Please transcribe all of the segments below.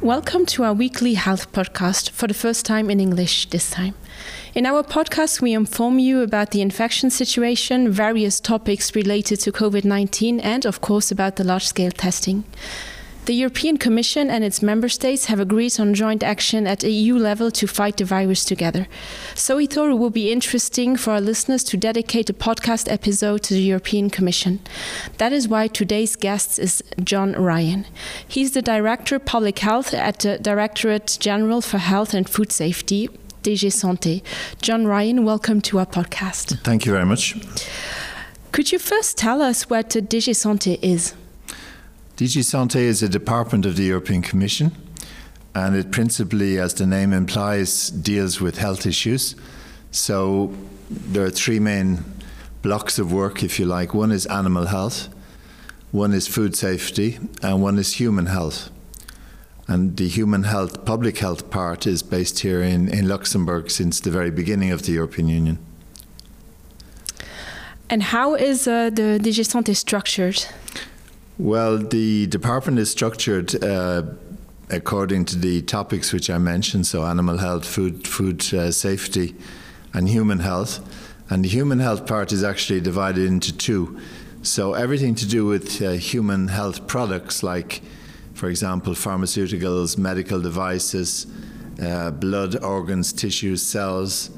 Welcome to our weekly health podcast for the first time in English this time. In our podcast, we inform you about the infection situation, various topics related to COVID-19 and, of course, about the large-scale testing. The European Commission and its member states have agreed on joint action at EU level to fight the virus together. So we thought it would be interesting for our listeners to dedicate a podcast episode to the European Commission. That is why today's guest is John Ryan. He's the Director of Public Health at the Directorate General for Health and Food Safety, DG Santé. John Ryan, welcome to our podcast. Thank you very much. Could you first tell us what DG Santé is? DG Santé is a department of the European Commission, and it principally, as the name implies, deals with health issues. So there are three main blocks of work, if you like. One is animal health, one is food safety, and one is human health. And the human health, public health part is based here in, in Luxembourg since the very beginning of the European Union. And how is uh, the DG Santé structured? Well, the department is structured uh, according to the topics which I mentioned, so animal health, food, food uh, safety, and human health. And the human health part is actually divided into two. So everything to do with uh, human health products, like, for example, pharmaceuticals, medical devices, uh, blood, organs, tissues, cells,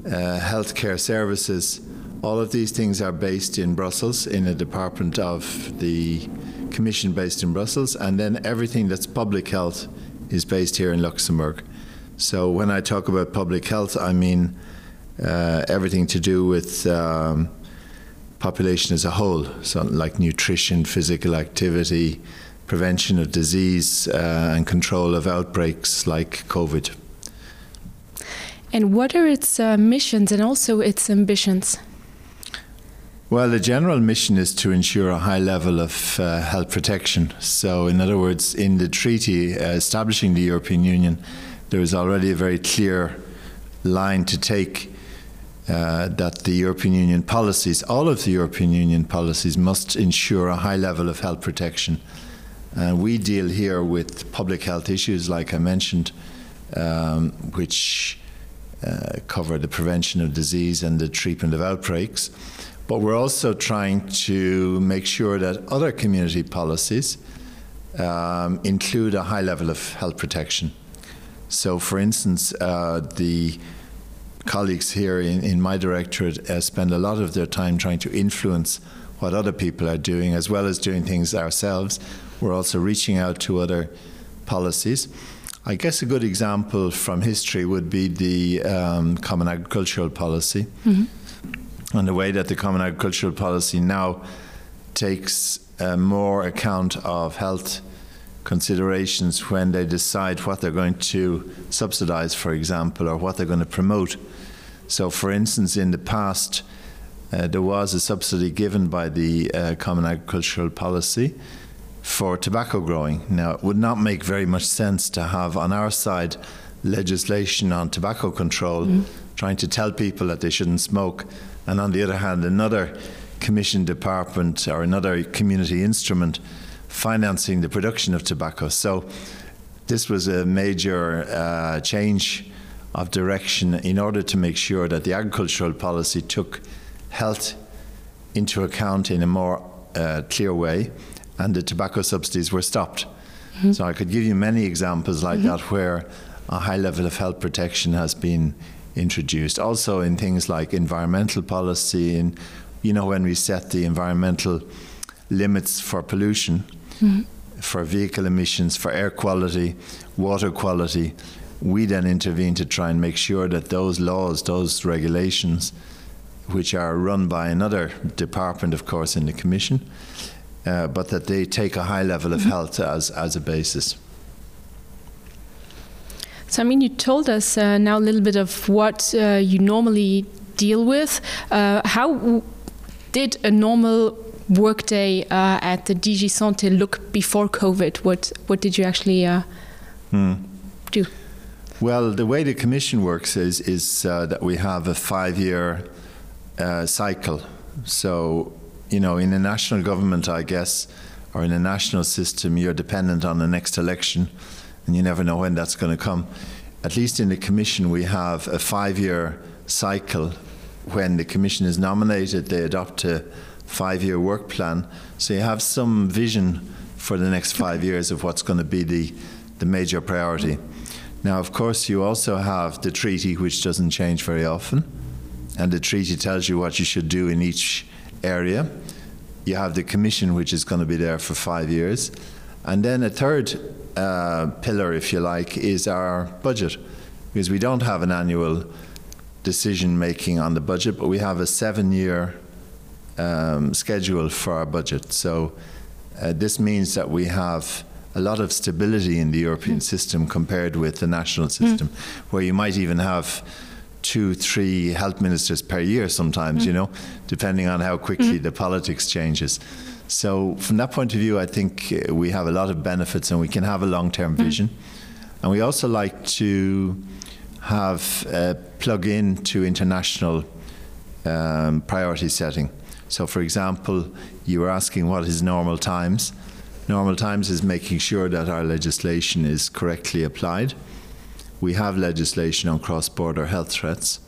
uh, healthcare services, all of these things are based in Brussels, in a department of the Commission based in Brussels, and then everything that's public health is based here in Luxembourg. So when I talk about public health, I mean uh, everything to do with um, population as a whole, so like nutrition, physical activity, prevention of disease uh, and control of outbreaks like COVID. And what are its uh, missions and also its ambitions? Well, the general mission is to ensure a high level of uh, health protection. So, in other words, in the treaty uh, establishing the European Union, there is already a very clear line to take uh, that the European Union policies, all of the European Union policies, must ensure a high level of health protection. And uh, we deal here with public health issues, like I mentioned, um, which uh, cover the prevention of disease and the treatment of outbreaks. But we're also trying to make sure that other community policies um, include a high level of health protection. So, for instance, uh, the colleagues here in, in my directorate uh, spend a lot of their time trying to influence what other people are doing, as well as doing things ourselves. We're also reaching out to other policies. I guess a good example from history would be the um, Common Agricultural Policy. Mm -hmm and the way that the Common Agricultural Policy now takes uh, more account of health considerations when they decide what they're going to subsidize, for example, or what they're going to promote. So, for instance, in the past, uh, there was a subsidy given by the uh, Common Agricultural Policy for tobacco growing. Now, it would not make very much sense to have on our side legislation on tobacco control, mm. trying to tell people that they shouldn't smoke, and on the other hand, another commission department or another community instrument financing the production of tobacco. So this was a major uh, change of direction in order to make sure that the agricultural policy took health into account in a more uh, clear way and the tobacco subsidies were stopped. Mm -hmm. So I could give you many examples like mm -hmm. that where a high level of health protection has been introduced. Also in things like environmental policy and you know when we set the environmental limits for pollution, mm -hmm. for vehicle emissions, for air quality, water quality, we then intervene to try and make sure that those laws, those regulations, which are run by another department, of course, in the Commission, uh, but that they take a high level of mm -hmm. health as, as a basis. So, I mean, you told us uh, now a little bit of what uh, you normally deal with. Uh, how did a normal workday uh, at the DG Santé look before COVID? What, what did you actually uh, hmm. do? Well, the way the Commission works is, is uh, that we have a five-year uh, cycle. So, you know, in a national government, I guess, or in a national system, you're dependent on the next election. and you never know when that's going to come. At least in the Commission, we have a five-year cycle. When the Commission is nominated, they adopt a five-year work plan. So you have some vision for the next five years of what's going to be the, the major priority. Now, of course, you also have the treaty, which doesn't change very often, and the treaty tells you what you should do in each area. You have the commission, which is going to be there for five years. And then a third uh, pillar, if you like, is our budget, because we don't have an annual decision making on the budget, but we have a seven year um, schedule for our budget. So uh, this means that we have a lot of stability in the European mm. system compared with the national hmm. system, mm. where you might even have two, three health ministers per year sometimes, mm. you know, depending on how quickly mm. the politics changes. So from that point of view, I think uh, we have a lot of benefits and we can have a long-term mm. vision. And we also like to have uh, plug in to international um, priority setting. So for example, you were asking what is normal times. Normal times is making sure that our legislation is correctly applied. We have legislation on cross-border health threats,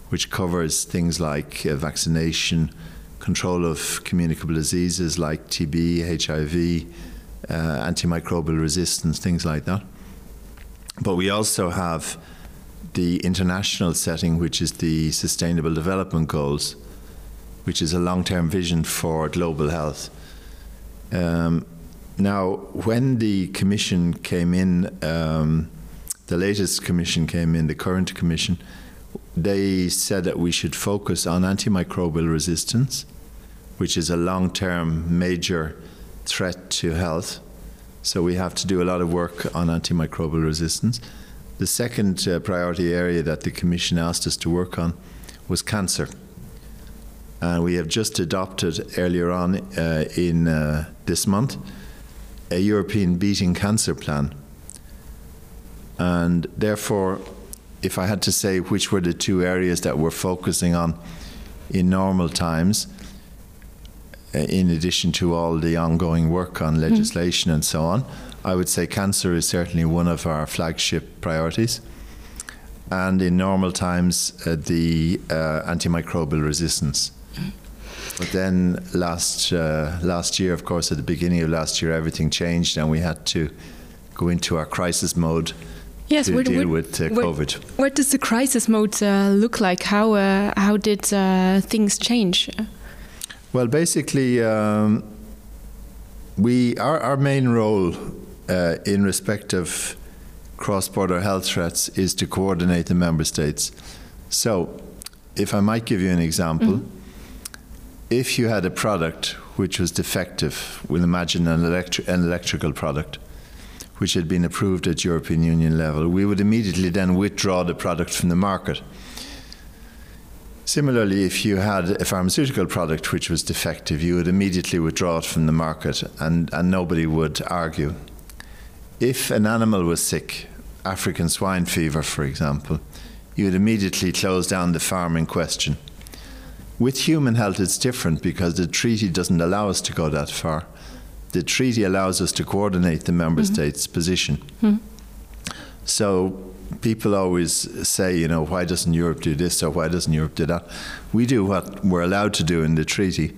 which covers things like uh, vaccination, control of communicable diseases like TB, HIV, uh, antimicrobial resistance, things like that. But we also have the international setting, which is the Sustainable Development Goals, which is a long-term vision for global health. Um, now, when the commission came in, um, the latest commission came in, the current commission, they said that we should focus on antimicrobial resistance, which is a long-term major threat to health. So we have to do a lot of work on antimicrobial resistance. The second uh, priority area that the Commission asked us to work on was cancer. And we have just adopted earlier on uh, in uh, this month a European Beating Cancer Plan. And therefore, if I had to say which were the two areas that we're focusing on in normal times, uh, in addition to all the ongoing work on hmm. legislation mm. and so on, I would say cancer is certainly one of our flagship priorities. And in normal times, uh, the uh, antimicrobial resistance. Mm. But then last, uh, last year, of course, at the beginning of last year, everything changed and we had to go into our crisis mode yes, to what, deal what, with uh, what, COVID. What does the crisis mode uh, look like? How, uh, how did uh, things change? Well, basically, um, we, our, our main role uh, in respect of cross-border health threats is to coordinate the member states. So, if I might give you an example, mm -hmm. if you had a product which was defective, we'll imagine an, electri an electrical product, which had been approved at European Union level, we would immediately then withdraw the product from the market. Similarly, if you had a pharmaceutical product which was defective, you would immediately withdraw it from the market and, and nobody would argue. If an animal was sick, African swine fever, for example, you would immediately close down the farm in question. With human health, it's different because the treaty doesn't allow us to go that far. The treaty allows us to coordinate the member mm -hmm. states' position. Mm -hmm. So people always say, you know, why doesn't Europe do this or why doesn't Europe do that? We do what we're allowed to do in the treaty.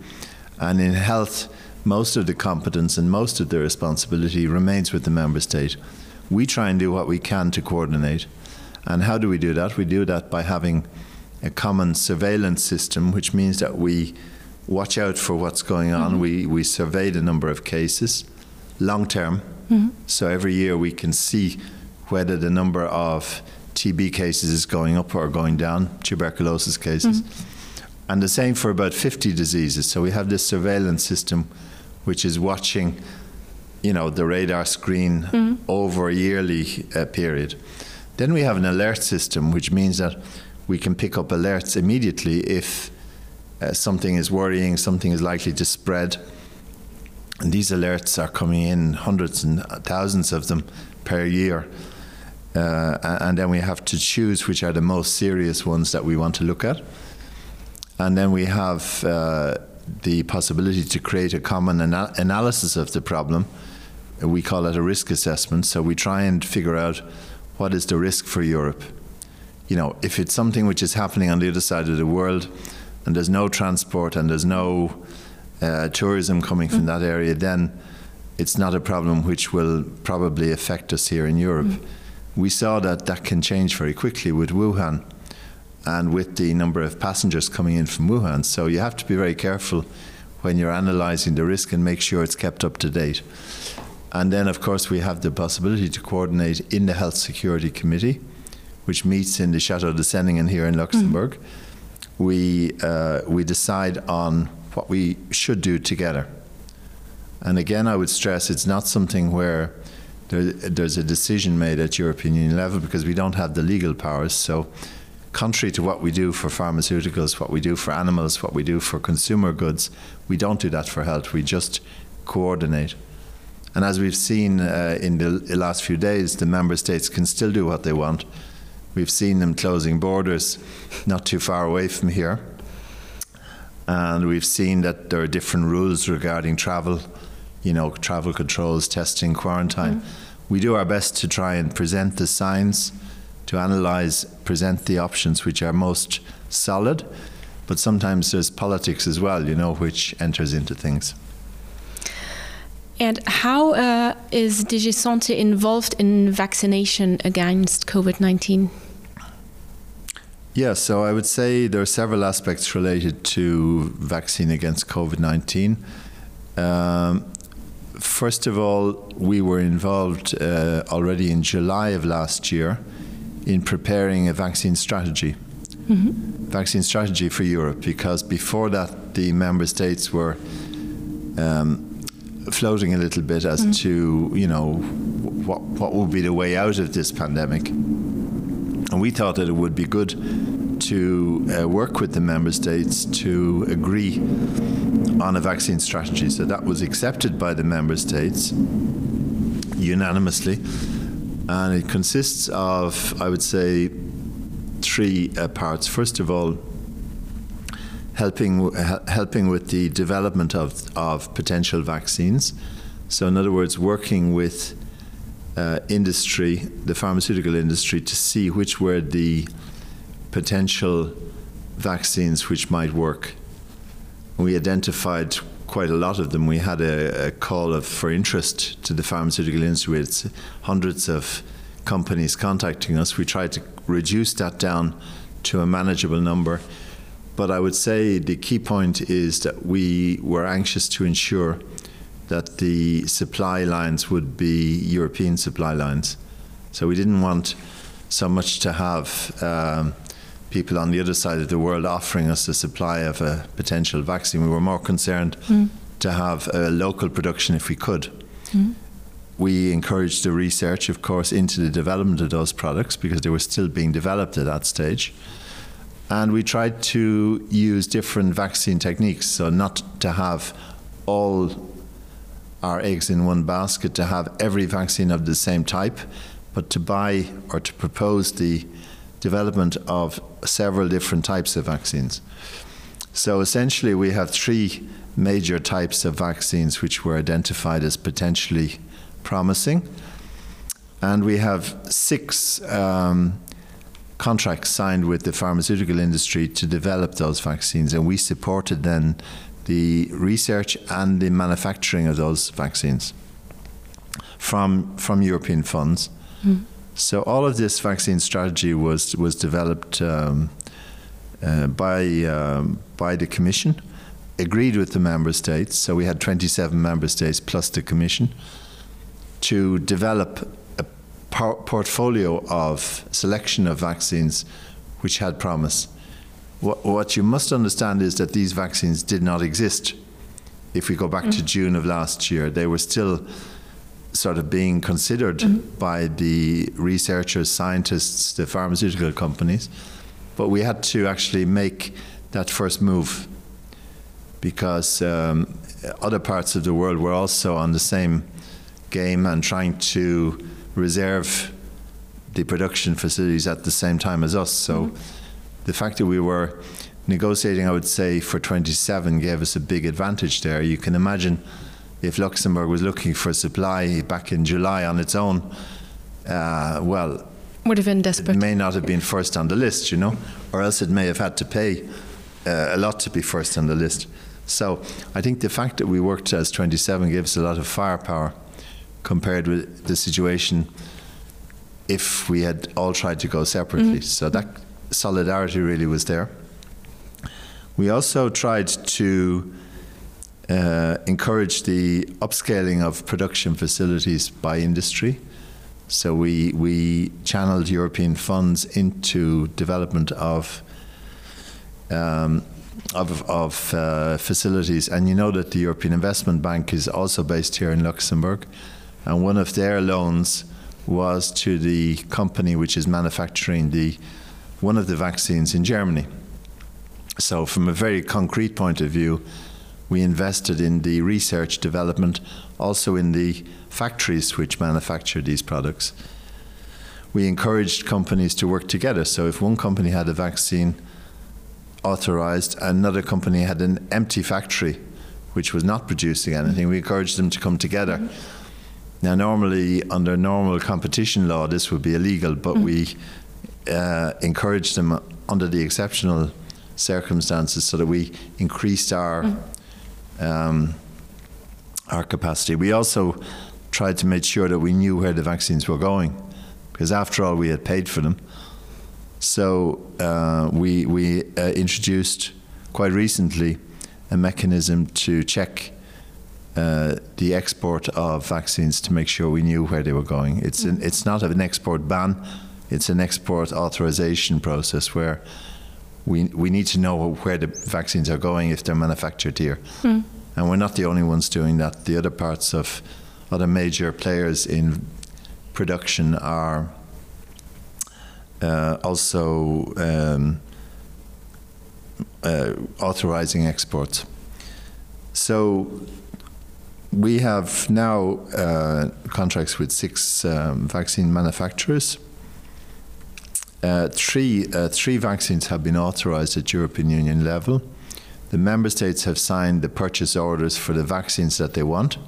And in health, most of the competence and most of the responsibility remains with the member state. We try and do what we can to coordinate. And how do we do that? We do that by having a common surveillance system, which means that we watch out for what's going on. Mm -hmm. We, we survey the number of cases long term. Mm -hmm. So every year we can see whether the number of TB cases is going up or going down, tuberculosis cases. Mm -hmm. And the same for about 50 diseases. So we have this surveillance system which is watching you know, the radar screen mm -hmm. over a yearly uh, period. Then we have an alert system, which means that we can pick up alerts immediately if uh, something is worrying, something is likely to spread. And these alerts are coming in hundreds and thousands of them per year. Uh, and then we have to choose which are the most serious ones that we want to look at. And then we have uh, the possibility to create a common ana analysis of the problem. We call it a risk assessment. So we try and figure out what is the risk for Europe. You know, if it's something which is happening on the other side of the world and there's no transport and there's no uh, tourism coming from mm. that area, then it's not a problem which will probably affect us here in Europe. Mm. We saw that that can change very quickly with Wuhan and with the number of passengers coming in from Wuhan. So you have to be very careful when you're analyzing the risk and make sure it's kept up to date. And then, of course, we have the possibility to coordinate in the Health Security Committee, which meets in the Chateau de Senningen here in Luxembourg. Mm. We, uh, we decide on what we should do together. And again, I would stress it's not something where there, there's a decision made at European Union level because we don't have the legal powers. So, contrary to what we do for pharmaceuticals, what we do for animals, what we do for consumer goods, we don't do that for health. We just coordinate. And as we've seen uh, in the last few days, the member states can still do what they want. We've seen them closing borders not too far away from here. And we've seen that there are different rules regarding travel, you know, travel controls, testing, quarantine. Mm. We do our best to try and present the signs, to analyze, present the options which are most solid. But sometimes there's politics as well, you know, which enters into things. And how uh, is DigiSante involved in vaccination against COVID-19? Yeah, so I would say there are several aspects related to vaccine against COVID-19. Um, first of all, we were involved uh, already in July of last year in preparing a vaccine strategy. Mm -hmm. Vaccine strategy for Europe, because before that, the member states were um, floating a little bit as mm -hmm. to, you know, what, what would be the way out of this pandemic. And we thought that it would be good to uh, work with the member states to agree on a vaccine strategy. So that was accepted by the member states unanimously. And it consists of, I would say, three uh, parts. First of all, helping, helping with the development of, of potential vaccines. So, in other words, working with uh, industry, the pharmaceutical industry, to see which were the potential vaccines which might work. We identified quite a lot of them. We had a, a call of, for interest to the pharmaceutical industry with hundreds of companies contacting us. We tried to reduce that down to a manageable number. But I would say the key point is that we were anxious to ensure that the supply lines would be European supply lines. So we didn't want so much to have um, people on the other side of the world offering us a supply of a potential vaccine. We were more concerned mm. to have a local production if we could. Mm. We encouraged the research, of course, into the development of those products because they were still being developed at that stage. And we tried to use different vaccine techniques, so not to have all our eggs in one basket, to have every vaccine of the same type, but to buy or to propose the development of several different types of vaccines. So essentially, we have three major types of vaccines which were identified as potentially promising. And we have six um, contracts signed with the pharmaceutical industry to develop those vaccines. And we supported then the research and the manufacturing of those vaccines from, from European funds. Mm. So all of this vaccine strategy was was developed um, uh, by um, by the Commission, agreed with the member states. So we had 27 member states plus the Commission to develop a por portfolio of selection of vaccines which had promise. What, what you must understand is that these vaccines did not exist. If we go back mm. to June of last year, they were still sort of being considered mm -hmm. by the researchers, scientists, the pharmaceutical companies. But we had to actually make that first move because um, other parts of the world were also on the same game and trying to reserve the production facilities at the same time as us. So mm -hmm. the fact that we were negotiating, I would say, for 27 gave us a big advantage there. You can imagine If Luxembourg was looking for supply back in July on its own, uh, well, would have been desperate. It may not have been first on the list, you know, or else it may have had to pay uh, a lot to be first on the list. So I think the fact that we worked as 27 gives a lot of firepower compared with the situation if we had all tried to go separately. Mm -hmm. So that solidarity really was there. We also tried to uh, encourage the upscaling of production facilities by industry. So we, we channeled European funds into development of um, of, of uh, facilities. And you know that the European Investment Bank is also based here in Luxembourg. And one of their loans was to the company which is manufacturing the one of the vaccines in Germany. So from a very concrete point of view, we invested in the research development, also in the factories which manufacture these products. We encouraged companies to work together. So if one company had a vaccine authorized, another company had an empty factory which was not producing anything, we encouraged them to come together. Mm -hmm. Now, normally, under normal competition law, this would be illegal, but mm -hmm. we uh, encouraged them under the exceptional circumstances so that we increased our mm -hmm. um, our capacity. We also tried to make sure that we knew where the vaccines were going, because after all, we had paid for them. So uh, we, we uh, introduced quite recently a mechanism to check uh, the export of vaccines to make sure we knew where they were going. It's, an, it's not an export ban, it's an export authorization process where we, we need to know where the vaccines are going if they're manufactured here. Mm. And we're not the only ones doing that. The other parts of other major players in production are uh, also um, uh, authorizing exports. So we have now uh, contracts with six um, vaccine manufacturers. Uh, three, uh, three vaccines have been authorized at European Union level. The member states have signed the purchase orders for the vaccines that they want.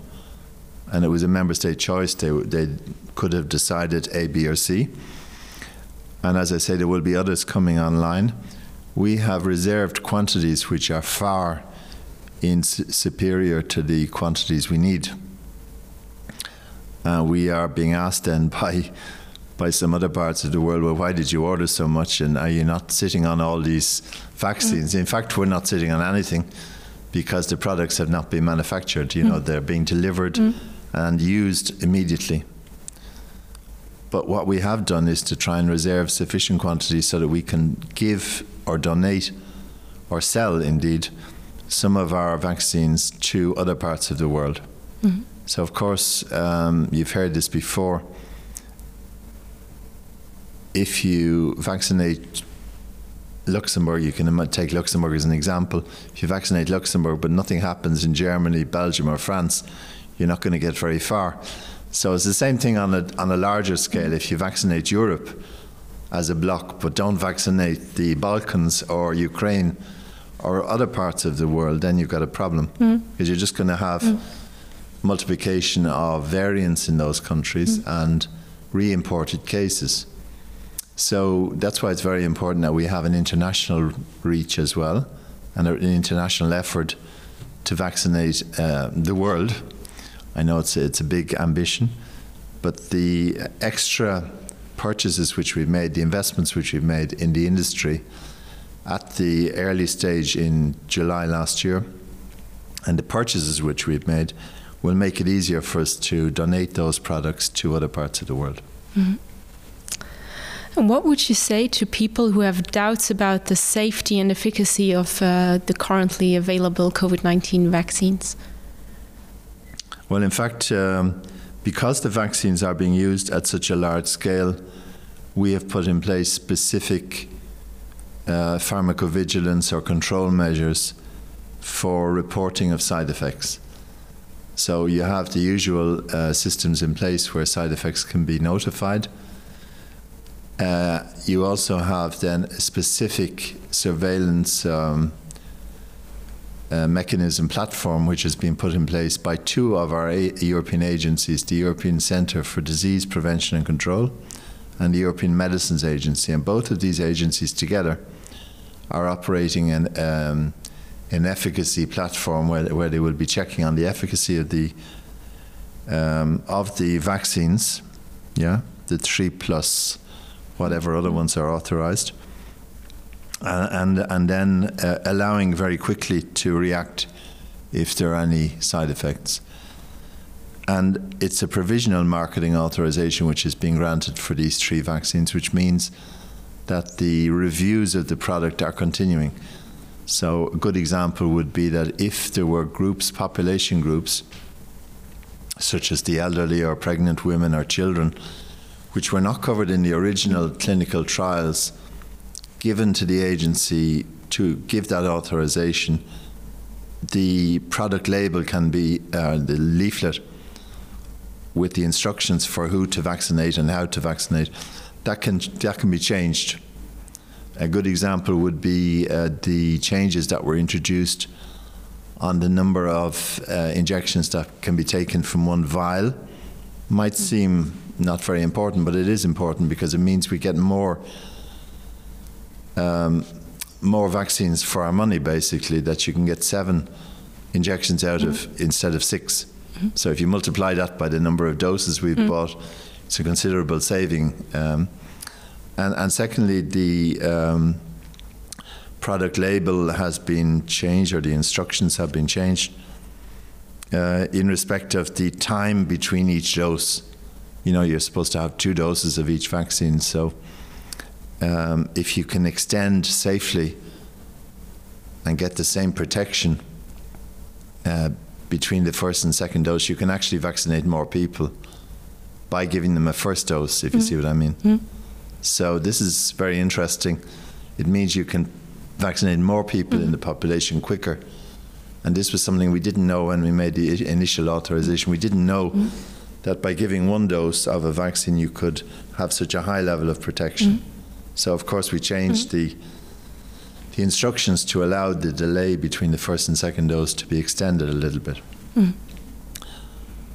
And it was a member state choice. They, they could have decided A, B, or C. And as I say, there will be others coming online. We have reserved quantities which are far in superior to the quantities we need. Uh, we are being asked then by by some other parts of the world, well, why did you order so much and are you not sitting on all these vaccines? Mm. In fact, we're not sitting on anything because the products have not been manufactured. You mm. know, they're being delivered mm. and used immediately. But what we have done is to try and reserve sufficient quantities so that we can give or donate or sell, indeed, some of our vaccines to other parts of the world. Mm -hmm. So, of course, um, you've heard this before. If you vaccinate Luxembourg, you can take Luxembourg as an example. If you vaccinate Luxembourg, but nothing happens in Germany, Belgium, or France, you're not going to get very far. So it's the same thing on a, on a larger scale. If you vaccinate Europe as a bloc, but don't vaccinate the Balkans or Ukraine or other parts of the world, then you've got a problem mm. because you're just going to have mm. multiplication of variants in those countries mm. and re-imported cases. So that's why it's very important that we have an international reach as well and an international effort to vaccinate uh, the world. I know it's a, it's a big ambition, but the extra purchases which we've made, the investments which we've made in the industry at the early stage in July last year, and the purchases which we've made will make it easier for us to donate those products to other parts of the world. Mm -hmm. And what would you say to people who have doubts about the safety and efficacy of uh, the currently available COVID-19 vaccines? Well, in fact, um, because the vaccines are being used at such a large scale, we have put in place specific uh, pharmacovigilance or control measures for reporting of side effects. So you have the usual uh, systems in place where side effects can be notified. Uh, you also have then specific surveillance um, uh, mechanism platform which has been put in place by two of our a European agencies, the European Centre for Disease Prevention and Control and the European Medicines Agency. And both of these agencies together are operating an, um, an efficacy platform where, where they will be checking on the efficacy of the um, of the vaccines, yeah, the three plus whatever other ones are authorized, uh, and, and then uh, allowing very quickly to react if there are any side effects. And it's a provisional marketing authorization which is being granted for these three vaccines, which means that the reviews of the product are continuing. So a good example would be that if there were groups, population groups, such as the elderly or pregnant women or children, which were not covered in the original clinical trials given to the agency to give that authorization, the product label can be uh, the leaflet with the instructions for who to vaccinate and how to vaccinate. That can, that can be changed. A good example would be uh, the changes that were introduced on the number of uh, injections that can be taken from one vial. Might seem not very important, but it is important because it means we get more um, more vaccines for our money, basically, that you can get seven injections out mm -hmm. of mm-hmm. instead of six. Mm -hmm. So if you multiply that by the number of doses we've mm -hmm. bought, it's a considerable saving. Um, and, and secondly, the um, product label has been changed or the instructions have been changed uh, in respect of the time between each dose. You know, you're supposed to have two doses of each vaccine. So um, if you can extend safely and get the same protection uh, between the first and second dose, you can actually vaccinate more people by giving them a first dose, if mm. you see what I mean. Mm. So this is very interesting. It means you can vaccinate more people mm. in the population quicker. And this was something we didn't know when we made the initial authorization. We didn't know mm. that by giving one dose of a vaccine, you could have such a high level of protection. Mm. So, of course, we changed mm. the the instructions to allow the delay between the first and second dose to be extended a little bit. Mm.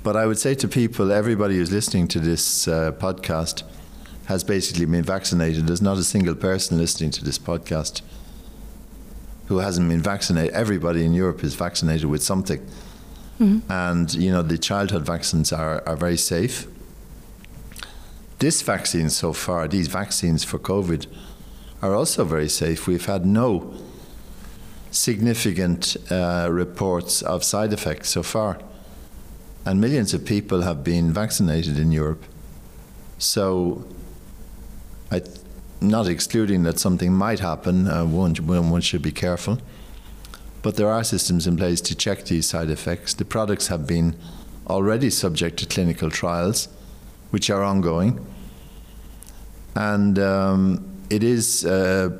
But I would say to people, everybody who's listening to this uh, podcast has basically been vaccinated. There's not a single person listening to this podcast who hasn't been vaccinated. Everybody in Europe is vaccinated with something. Mm -hmm. And, you know, the childhood vaccines are, are very safe. This vaccine so far, these vaccines for COVID, are also very safe. We've had no significant uh, reports of side effects so far. And millions of people have been vaccinated in Europe. So I'm not excluding that something might happen, uh, one, one should be careful. But there are systems in place to check these side effects. The products have been already subject to clinical trials, which are ongoing. And um, it is uh,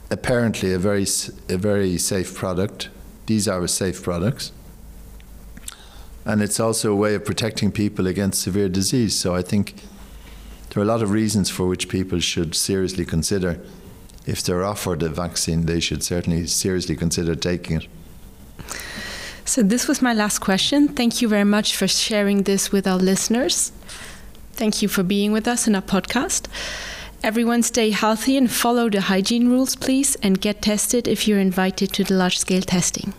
apparently a very, a very safe product. These are safe products. And it's also a way of protecting people against severe disease. So I think there are a lot of reasons for which people should seriously consider if they're offered a vaccine, they should certainly seriously consider taking it. So this was my last question. Thank you very much for sharing this with our listeners. Thank you for being with us in our podcast. Everyone stay healthy and follow the hygiene rules, please, and get tested if you're invited to the large-scale testing.